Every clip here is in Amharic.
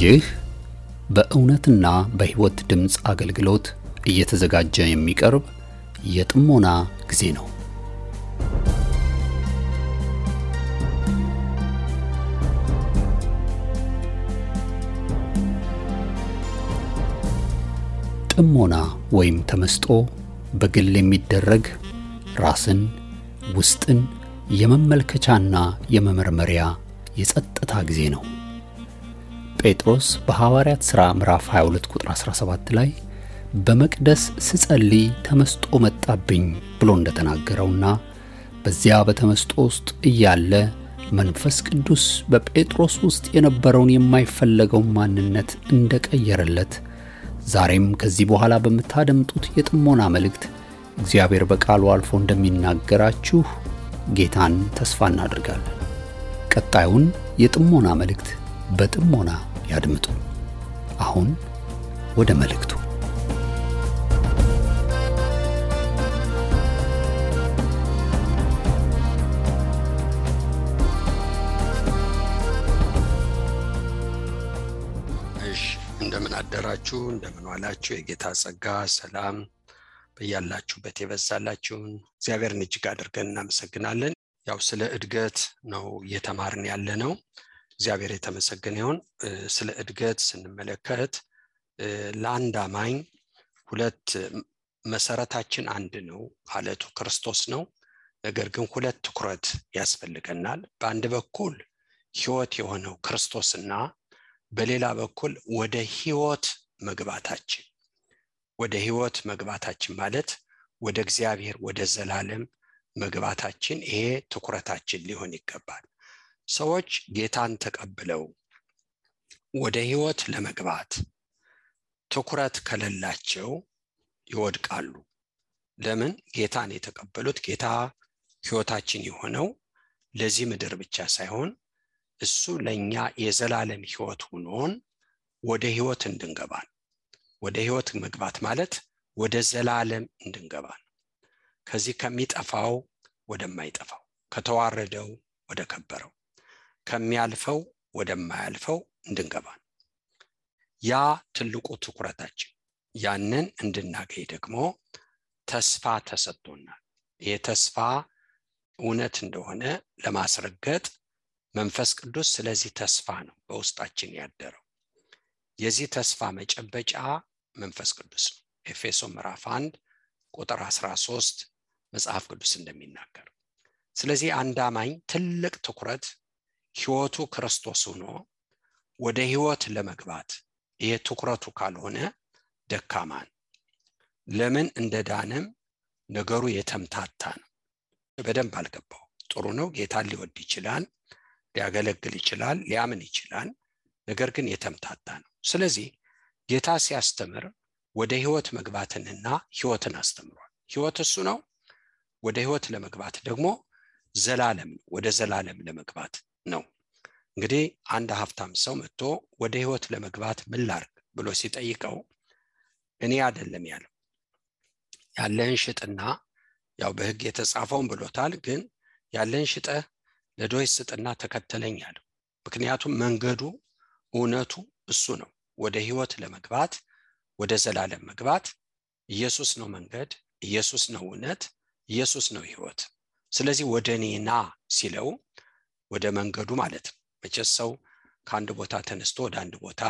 ይህ በእውነትና በሕይወት ድምጽ አገልግሎት እየተዘጋጀ የሚቀርብ የጥሞና ጊዜ ነው። ጥሞና ወይም ተመስጦ በግል የሚደረግ ራስን ውስጥን የመመልከቻና የመመርመሪያ የጸጥታ ጊዜ ነው። ጴጥሮስ በሐዋርያት ሥራ ምዕራፍ 22 ቁጥር 17 ላይ በመቅደስ ስጸልይ ተመስጦ መጣብኝ ብሎ እንደተናገረውና በዚያ በተመስጦ ውስጥ እያለ መንፈስ ቅዱስ በጴጥሮስ ውስጥ የነበረውን የማይፈለገው ማንነት እንደቀየረለት ዛሬም ከዚህ በኋላ በመታደምጡት የጥሞና መልእክት እግዚአብሔር በቃሉ አልፎ እንደሚናገራችሁ ጌታን ተስፋ እናደርጋለን። ቀጣዩን የጥሞና መልእክት በጥሞና ያድምጡ። አሁን ወደ መልእክቱ። እንደምን አደራችሁ፣ እንደምን ዋላችሁ። የጌታ ጸጋ ሰላም በእያላችሁበት ይበዛላችሁን እግዚአብሔርን እጅግ አድርገን እናመሰግናለን። ያው ስለ እድገት ነው እየተማርን ያለነው። እግዚአብሔር የተመሰገነ ይሁን። ስለ እድገት ስንመለከት ለአንድ አማኝ ሁለት መሰረታችን አንድ ነው፣ አለቱ ክርስቶስ ነው። ነገር ግን ሁለት ትኩረት ያስፈልገናል። በአንድ በኩል ሕይወት የሆነው ክርስቶስና በሌላ በኩል ወደ ሕይወት መግባታችን። ወደ ሕይወት መግባታችን ማለት ወደ እግዚአብሔር ወደ ዘላለም መግባታችን፣ ይሄ ትኩረታችን ሊሆን ይገባል። ሰዎች ጌታን ተቀብለው ወደ ሕይወት ለመግባት ትኩረት ከሌላቸው ይወድቃሉ። ለምን? ጌታን የተቀበሉት ጌታ ሕይወታችን የሆነው ለዚህ ምድር ብቻ ሳይሆን እሱ ለኛ የዘላለም ሕይወት ሆኖን ወደ ሕይወት እንድንገባ። ወደ ሕይወት መግባት ማለት ወደ ዘላለም እንድንገባ፣ ከዚህ ከሚጠፋው ወደማይጠፋው፣ ከተዋረደው ወደ ከበረው፣ ከሚያልፈው ወደማያልፈው እንድንገባ። ያ ትልቁ ትኩረታችን። ያንን እንድናገኝ ደግሞ ተስፋ ተሰጥቶናል። ይሄ ተስፋ እውነት እንደሆነ ለማስረገጥ መንፈስ ቅዱስ ስለዚህ ተስፋ ነው በውስጣችን ያደረው። የዚህ ተስፋ መጨበጫ መንፈስ ቅዱስ ነው። ኤፌሶን ምዕራፍ 1 ቁጥር 13 መጽሐፍ ቅዱስ እንደሚናገር። ስለዚህ አንድ አማኝ ትልቅ ትኩረት ሕይወቱ ክርስቶስ ሆኖ ወደ ሕይወት ለመግባት፣ ይሄ ትኩረቱ ካልሆነ ደካማን። ለምን እንደዳነም ነገሩ የተምታታ ነው። በደንብ አልገባው። ጥሩ ነው፣ ጌታን ሊወድ ይችላል፣ ሊያገለግል ይችላል፣ ሊያምን ይችላል። ነገር ግን የተምታታ ነው። ስለዚህ ጌታ ሲያስተምር ወደ ሕይወት መግባትንና ሕይወትን አስተምሯል። ሕይወት እሱ ነው። ወደ ሕይወት ለመግባት ደግሞ ዘላለም፣ ወደ ዘላለም ለመግባት ነው። እንግዲህ አንድ ሀብታም ሰው መጥቶ ወደ ሕይወት ለመግባት ምን ላድርግ ብሎ ሲጠይቀው እኔ አይደለም ያለው፣ ያለህን ሽጥና፣ ያው በሕግ የተጻፈውን ብሎታል፣ ግን ያለህን ሽጠህ ለድሆች ስጥና ተከተለኝ አለው። ምክንያቱም መንገዱ እውነቱ እሱ ነው። ወደ ሕይወት ለመግባት፣ ወደ ዘላለም መግባት ኢየሱስ ነው መንገድ፣ ኢየሱስ ነው እውነት፣ ኢየሱስ ነው ሕይወት። ስለዚህ ወደ እኔ ና ሲለው ወደ መንገዱ ማለት ነው። መቼስ ሰው ከአንድ ቦታ ተነስቶ ወደ አንድ ቦታ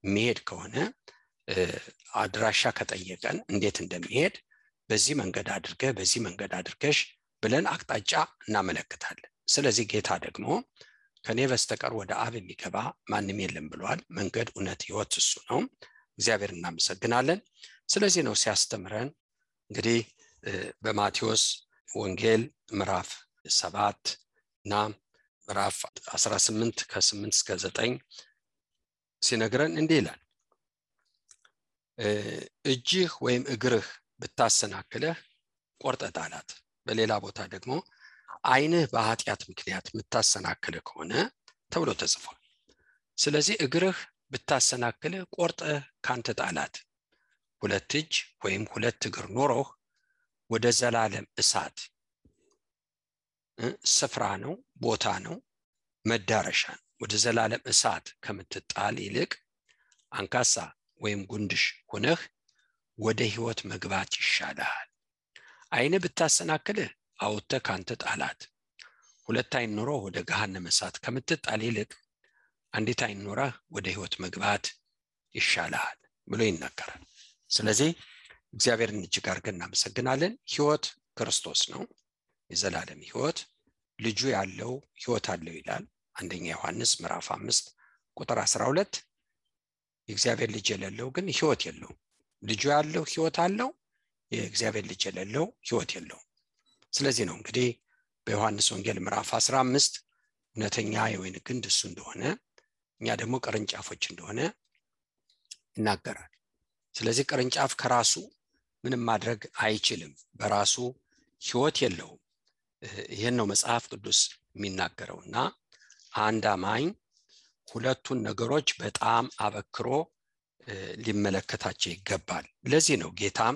የሚሄድ ከሆነ አድራሻ ከጠየቀን እንዴት እንደሚሄድ በዚህ መንገድ አድርገህ፣ በዚህ መንገድ አድርገሽ ብለን አቅጣጫ እናመለክታለን። ስለዚህ ጌታ ደግሞ ከኔ በስተቀር ወደ አብ የሚገባ ማንም የለም ብሏል። መንገድ፣ እውነት፣ ሕይወት እሱ ነው። እግዚአብሔር እናመሰግናለን። ስለዚህ ነው ሲያስተምረን እንግዲህ በማቴዎስ ወንጌል ምዕራፍ 7 እና ምዕራፍ 18 ከ8 እስከ 9 ሲነግረን እንዲህ ይላል። እጅህ ወይም እግርህ ብታሰናክልህ ቆርጠህ ጣላት። በሌላ ቦታ ደግሞ ዓይንህ በኃጢአት ምክንያት የምታሰናክልህ ከሆነ ተብሎ ተጽፏል። ስለዚህ እግርህ ብታሰናክልህ ቆርጠህ ካንተ ጣላት። ሁለት እጅ ወይም ሁለት እግር ኖሮህ ወደ ዘላለም እሳት ስፍራ ነው፣ ቦታ ነው፣ መዳረሻ ነው። ወደ ዘላለም እሳት ከምትጣል ይልቅ አንካሳ ወይም ጉንድሽ ሆነህ ወደ ሕይወት መግባት ይሻላል። ዓይን ብታሰናክልህ አውጥተህ ካንተ ጣላት። ሁለት ዓይን ኖሮ ወደ ገሃነመ እሳት ከምትጣል ይልቅ አንዲት ዓይን ኖረህ ወደ ሕይወት መግባት ይሻላል ብሎ ይናገራል። ስለዚህ እግዚአብሔርን እጅግ አድርገን እናመሰግናለን። ሕይወት ክርስቶስ ነው፣ የዘላለም ሕይወት። ልጁ ያለው ሕይወት አለው ይላል አንደኛ ዮሐንስ ምዕራፍ 5 ቁጥር 12። የእግዚአብሔር ልጅ የሌለው ግን ሕይወት የለውም። ልጁ ያለው ሕይወት አለው፣ የእግዚአብሔር ልጅ የሌለው ሕይወት የለውም። ስለዚህ ነው እንግዲህ በዮሐንስ ወንጌል ምዕራፍ 15 እውነተኛ የወይን ግንድ እሱ እንደሆነ እኛ ደግሞ ቅርንጫፎች እንደሆነ ይናገራል። ስለዚህ ቅርንጫፍ ከራሱ ምንም ማድረግ አይችልም፣ በራሱ ሕይወት የለውም። ይህን ነው መጽሐፍ ቅዱስ የሚናገረውና አንድ አማኝ ሁለቱን ነገሮች በጣም አበክሮ ሊመለከታቸው ይገባል። ለዚህ ነው ጌታም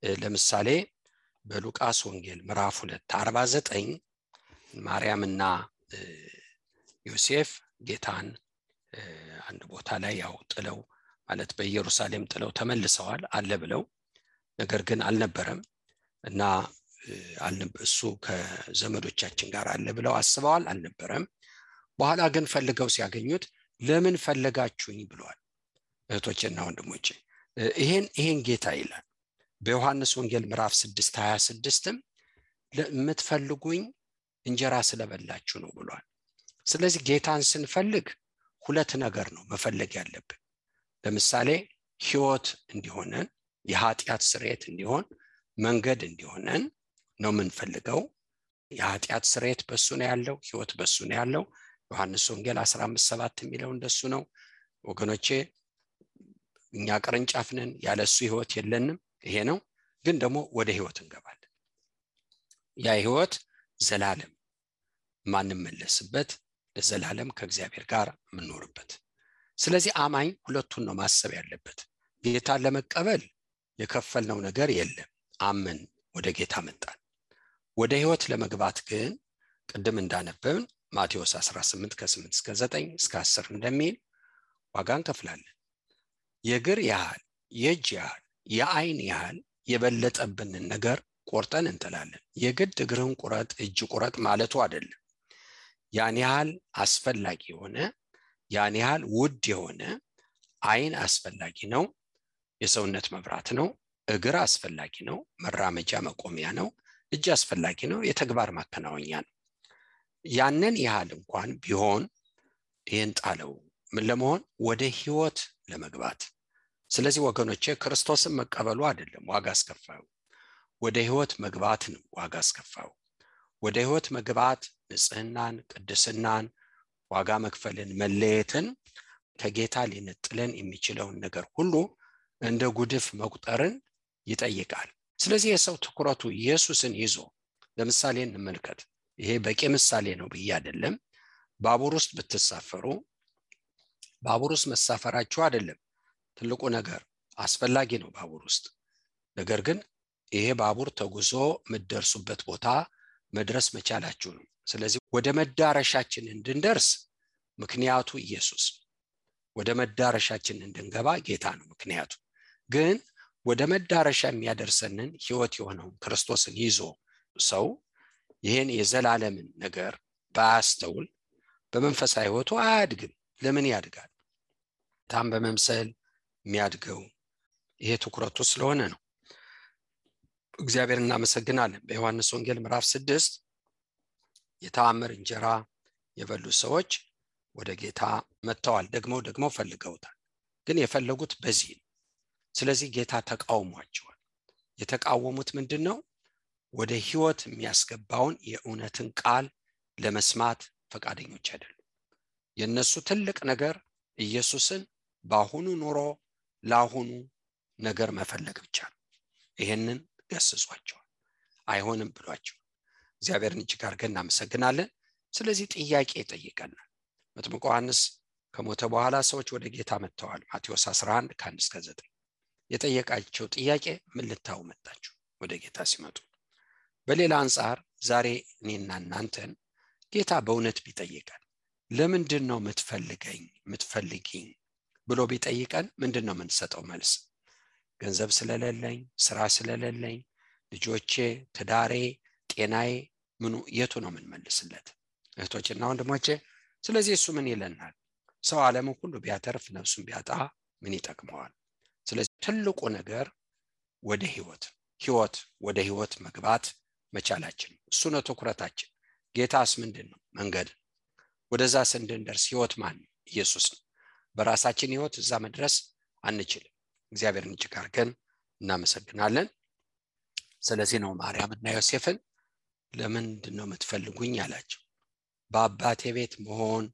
ለምሳሌ በሉቃስ ወንጌል ምዕራፍ 2:49 ማርያምና ዮሴፍ ጌታን አንድ ቦታ ላይ ያው ጥለው ማለት በኢየሩሳሌም ጥለው ተመልሰዋል አለ ብለው፣ ነገር ግን አልነበረም እና እሱ ከዘመዶቻችን ጋር አለ ብለው አስበዋል፣ አልነበረም። በኋላ ግን ፈልገው ሲያገኙት ለምን ፈለጋችሁኝ ብለዋል። እህቶቼና ወንድሞቼ ይሄን ጌታ ይላል በዮሐንስ ወንጌል ምዕራፍ 6:26 ለምትፈልጉኝ እንጀራ ስለበላችሁ ነው ብሏል። ስለዚህ ጌታን ስንፈልግ ሁለት ነገር ነው መፈለግ ያለብን። ለምሳሌ ሕይወት እንዲሆነን፣ የኃጢአት ስርየት እንዲሆን፣ መንገድ እንዲሆነን ነው የምንፈልገው። የኃጢአት ስርየት በሱ ነው ያለው፣ ሕይወት በሱ ነው ያለው። ዮሐንስ ወንጌል 15:7 የሚለው እንደሱ ነው ወገኖቼ። እኛ ቅርንጫፍ ነን፣ ያለሱ ሕይወት የለንም። ይሄ ነው። ግን ደግሞ ወደ ሕይወት እንገባለን። ያ ሕይወት ዘላለም ማንመለስበት፣ ለዘላለም ከእግዚአብሔር ጋር የምንኖርበት። ስለዚህ አማኝ ሁለቱን ነው ማሰብ ያለበት። ጌታን ለመቀበል የከፈልነው ነገር የለም፣ አመን ወደ ጌታ መጣን። ወደ ሕይወት ለመግባት ግን ቅድም እንዳነበብን ማቴዎስ 18:8-9 እስከ 10 እንደሚል ዋጋ እንከፍላለን። የእግር ያህል፣ የእጅ ያህል፣ የዓይን ያህል የበለጠብንን ነገር ቆርጠን እንጥላለን። የግድ እግርህን ቁረጥ እጅ ቁረጥ ማለቱ አይደለም። ያን ያህል አስፈላጊ የሆነ ያን ያህል ውድ የሆነ ዓይን አስፈላጊ ነው፣ የሰውነት መብራት ነው። እግር አስፈላጊ ነው፣ መራመጃ መቆሚያ ነው። እጅ አስፈላጊ ነው፣ የተግባር ማከናወኛ ነው። ያንን ያህል እንኳን ቢሆን ይህን ጣለው ምን ለመሆን? ወደ ሕይወት ለመግባት። ስለዚህ ወገኖቼ ክርስቶስን መቀበሉ አይደለም ዋጋ አስከፋዩ፣ ወደ ሕይወት መግባት ነው ዋጋ አስከፋዩ። ወደ ሕይወት መግባት ንጽህናን፣ ቅድስናን፣ ዋጋ መክፈልን፣ መለየትን፣ ከጌታ ሊነጥለን የሚችለውን ነገር ሁሉ እንደ ጉድፍ መቁጠርን ይጠይቃል። ስለዚህ የሰው ትኩረቱ ኢየሱስን ይዞ ለምሳሌ እንመልከት። ይሄ በቂ ምሳሌ ነው ብዬ አይደለም። ባቡር ውስጥ ብትሳፈሩ ባቡር ውስጥ መሳፈራችሁ አይደለም ትልቁ ነገር፣ አስፈላጊ ነው ባቡር ውስጥ። ነገር ግን ይሄ ባቡር ተጉዞ የምትደርሱበት ቦታ መድረስ መቻላችሁ ነው። ስለዚህ ወደ መዳረሻችን እንድንደርስ ምክንያቱ ኢየሱስ፣ ወደ መዳረሻችን እንድንገባ ጌታ ነው ምክንያቱ። ግን ወደ መዳረሻ የሚያደርሰንን ሕይወት የሆነውን ክርስቶስን ይዞ ሰው ይሄን የዘላለምን ነገር ባያስተውል በመንፈሳዊ ሕይወቱ አያድግም። ለምን ያድጋል? ታም በመምሰል የሚያድገው ይሄ ትኩረቱ ስለሆነ ነው። እግዚአብሔር እናመሰግናለን። በዮሐንስ ወንጌል ምዕራፍ 6 የተአምር እንጀራ የበሉ ሰዎች ወደ ጌታ መጥተዋል። ደግሞ ፈልገውታል። ግን የፈለጉት በዚህ ነው። ስለዚህ ጌታ ተቃውሟቸዋል። የተቃወሙት ምንድነው? ወደ ሕይወት የሚያስገባውን የእውነትን ቃል ለመስማት ፈቃደኞች አይደሉም። የነሱ ትልቅ ነገር ኢየሱስን በአሁኑ ኑሮ ለአሁኑ ነገር መፈለግ ብቻ ነው። ይሄንን ገስጿቸዋል፣ አይሆንም ብሏቸው። እግዚአብሔርን እጅግ አድርገን እናመሰግናለን። ስለዚህ ጥያቄ ይጠይቀናል። መጥምቁ ዮሐንስ ከሞተ በኋላ ሰዎች ወደ ጌታ መጥተዋል። ማቴዎስ 11:1-9 የጠየቃቸው ጥያቄ ምን ልታው መጣችሁ ወደ ጌታ ሲመጡ? በሌላ አንጻር ዛሬ እኔና እናንተን ጌታ በእውነት ቢጠይቀን ለምንድን ነው የምትፈልጊኝ ብሎ ቢጠይቀን ምንድነው የምንሰጠው መልስ? ገንዘብ ስለሌለኝ፣ ስራ ስለሌለኝ፣ ልጆቼ፣ ትዳሬ፣ ጤናዬ ምኑ የቱ ነው የምንመልስለት? እህቶችና ወንድሞቼ፣ ስለዚህ እሱ ምን ይለናል? ሰው ዓለምን ሁሉ ቢያተርፍ ነፍሱን ቢያጣ ምን ይጠቅመዋል? ስለዚህ ትልቁ ነገር ወደ ህይወት መግባት መቻላችን፣ እሱ ነው ትኩረታችን። ጌታስ ምንድነው? መንገድ። ወደዛ እንድንደርስ ህይወት ማን? ኢየሱስ ነው። በራሳችን ህይወት እዛ መድረስ አንችልም። እግዚአብሔርን እጅግ አድርገን እናመሰግናለን። ስለዚህ ነው ማርያምና ዮሴፍን ለምንድነው የምትፈልጉኝ ያላቸው? በአባቴ ቤት መሆን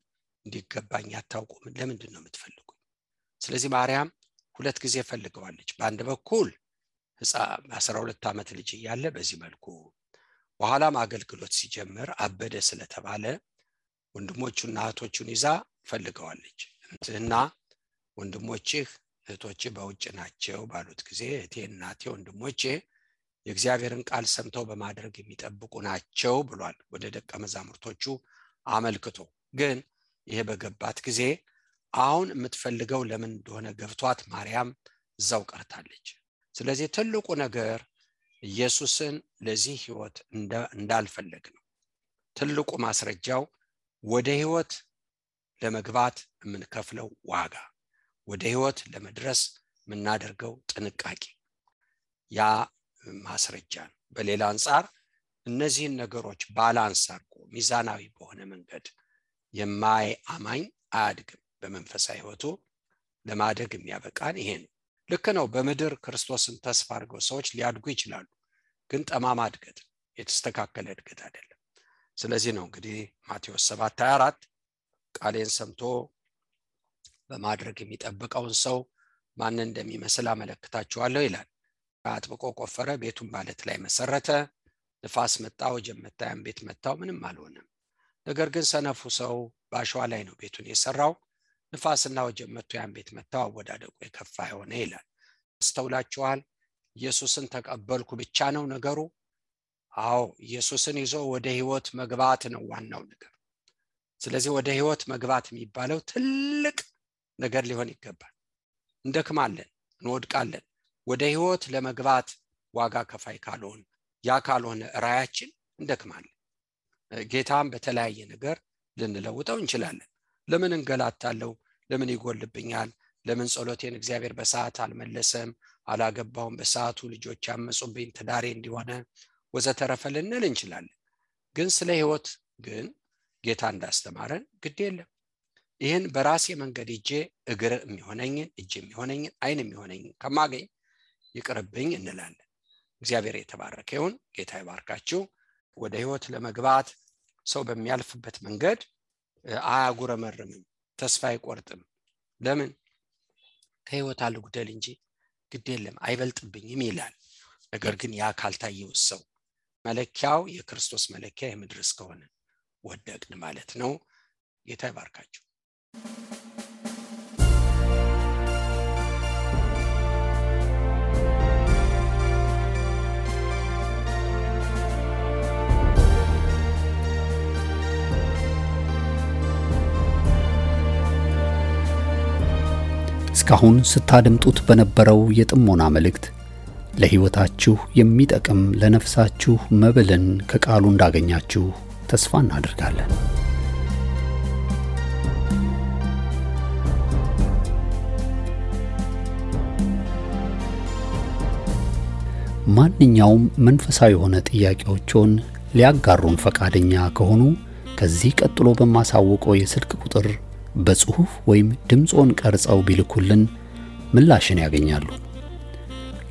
እንዲገባኝ አታውቁም? ለምንድነው የምትፈልጉኝ? ስለዚህ ማርያም ሁለት ጊዜ ፈልገዋለች። በአንድ በኩል 12 ዓመት ልጅ እያለ በዚህ መልኩ፣ በኋላም አገልግሎት ሲጀምር አበደ ስለተባለ ወንድሞቹና እህቶቹን ይዛ ፈልገዋለች። እና ወንድሞችህ እህቶችህ በውጭ ናቸው ባሉት ጊዜ እህቴ፣ እናቴ፣ ወንድሞቼ የእግዚአብሔርን ቃል ሰምተው በማድረግ የሚጠብቁ ናቸው ብሏል ወደ ደቀ መዛሙርቶቹ አመልክቶ። ግን ይሄ በገባት ጊዜ አሁን የምትፈልገው ለምን እንደሆነ ገብቷት ማርያም እዛው ቀርታለች። ስለዚህ ትልቁ ነገር ኢየሱስን ለዚህ ህይወት እንዳልፈለግ ነው። ትልቁ ማስረጃው ወደ ህይወት ለመግባት የምንከፍለው ዋጋ፣ ወደ ህይወት ለመድረስ የምናደርገው ጥንቃቄ ያ ማስረጃ ነው። በሌላ አንፃር እነዚህን ነገሮች ባላንስ አድርጎ ሚዛናዊ በሆነ መንገድ የማያማኝ አያድግም። በመንፈሳዊ ህይወቱ ለማደግ የሚያበቃን ይሄ ነው። ልክ ነው። በምድር ክርስቶስን ተስፋ አድርገው ሰዎች ሊያድጉ ይችላሉ። ግን ጠማማ እድገት፣ የተስተካከለ እድገት አይደለም። ስለዚህ ነው እንግዲህ ማቴዎስ 7:24 ቃሌን ሰምቶ በማድረግ የሚጠብቀውን ሰው ማንን እንደሚመስል አመለክታችኋለሁ ይላል። አጥብቆ ቆፈረ፣ ቤቱን ባለት ላይ መሰረተ። ንፋስ መጣ፣ ወጀብ መታ፣ ያን ቤት መታው፣ ምንም አልሆነም። ነገር ግን ሰነፉ ሰው በአሸዋ ላይ ነው ቤቱን የሰራው። ንፋስና ወጀብ መጥቶ ያን ቤት መታው፣ አወዳደቁ የከፋ ሆነ ይላል። አስተውላችኋል? ኢየሱስን ተቀበልኩ ብቻ ነው ነገሩ? አዎ፣ ኢየሱስን ይዞ ወደ ህይወት መግባት ነው ዋናው ነገር። ስለዚህ ወደ ህይወት መግባት የሚባለው ትልቅ ነገር ሊሆን ይገባል። እንደክማለን፣ እንወድቃለን። ወደ ህይወት ለመግባት ዋጋ ከፋይ ካልሆነ፣ ያ ካልሆነ ራያችን እንደክማለን። ጌታም በተለያየ ነገር ልንለውጠው እንችላለን። ለምን እንገላታለሁ? ለምን ይጎልብኛል? ለምን ጸሎቴን እግዚአብሔር በሰዓት አልመለሰም? አላገባውም በሰዓቱ፣ ልጆች ያመጹብኝ፣ ትዳሬ እንዲሆነ ወዘተረፈ ልንል እንችላለን። ግን ስለ ህይወት ግን ጌታ እንዳስተማረን ግድ የለም። ይህን በራሴ መንገድ እጄ እግር የሚሆነኝን፣ እጅ የሚሆነኝን፣ አይን የሚሆነኝን ከማገኝ ይቅርብኝ እንላለን። እግዚአብሔር የተባረከ ይሁን። ጌታ ይባርካችሁ። ወደ ህይወት ለመግባት ሰው በሚያልፍበት መንገድ አያጉረመርምም፣ ተስፋ አይቆርጥም። ለምን? ከህይወት አልጉደል እንጂ ግድ የለም አይበልጥብኝም ይላል። ነገር ግን ያ ካልታየው ሰው መለኪያው የክርስቶስ መለኪያ የምድር እስከሆነ ወደቅን ማለት ነው። ጌታ ይባርካችሁ። እስካሁን ስታደምጡት በነበረው የጥሞና መልእክት ለህይወታችሁ የሚጠቅም ለነፍሳችሁ መብልን ከቃሉ እንዳገኛችሁ ተስፋ እናደርጋለን። ማንኛውም መንፈሳዊ የሆነ ጥያቄዎችን ሊያጋሩን ፈቃደኛ ከሆኑ ከዚህ ቀጥሎ በማሳወቀው የስልክ ቁጥር በጽሁፍ ወይም ድምጾን ቀርጸው ቢልኩልን ምላሽን ያገኛሉ።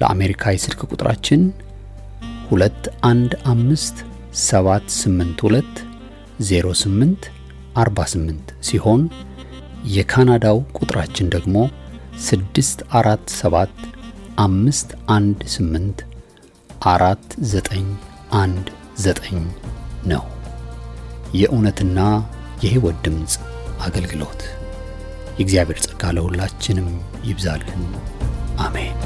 ለአሜሪካ የስልክ ቁጥራችን 2157820848 ሲሆን የካናዳው ቁጥራችን ደግሞ 647518491 ነው። የእውነትና የህይወት ድምጽ አገልግሎት። የእግዚአብሔር ጸጋ ለሁላችንም ይብዛልን። አሜን።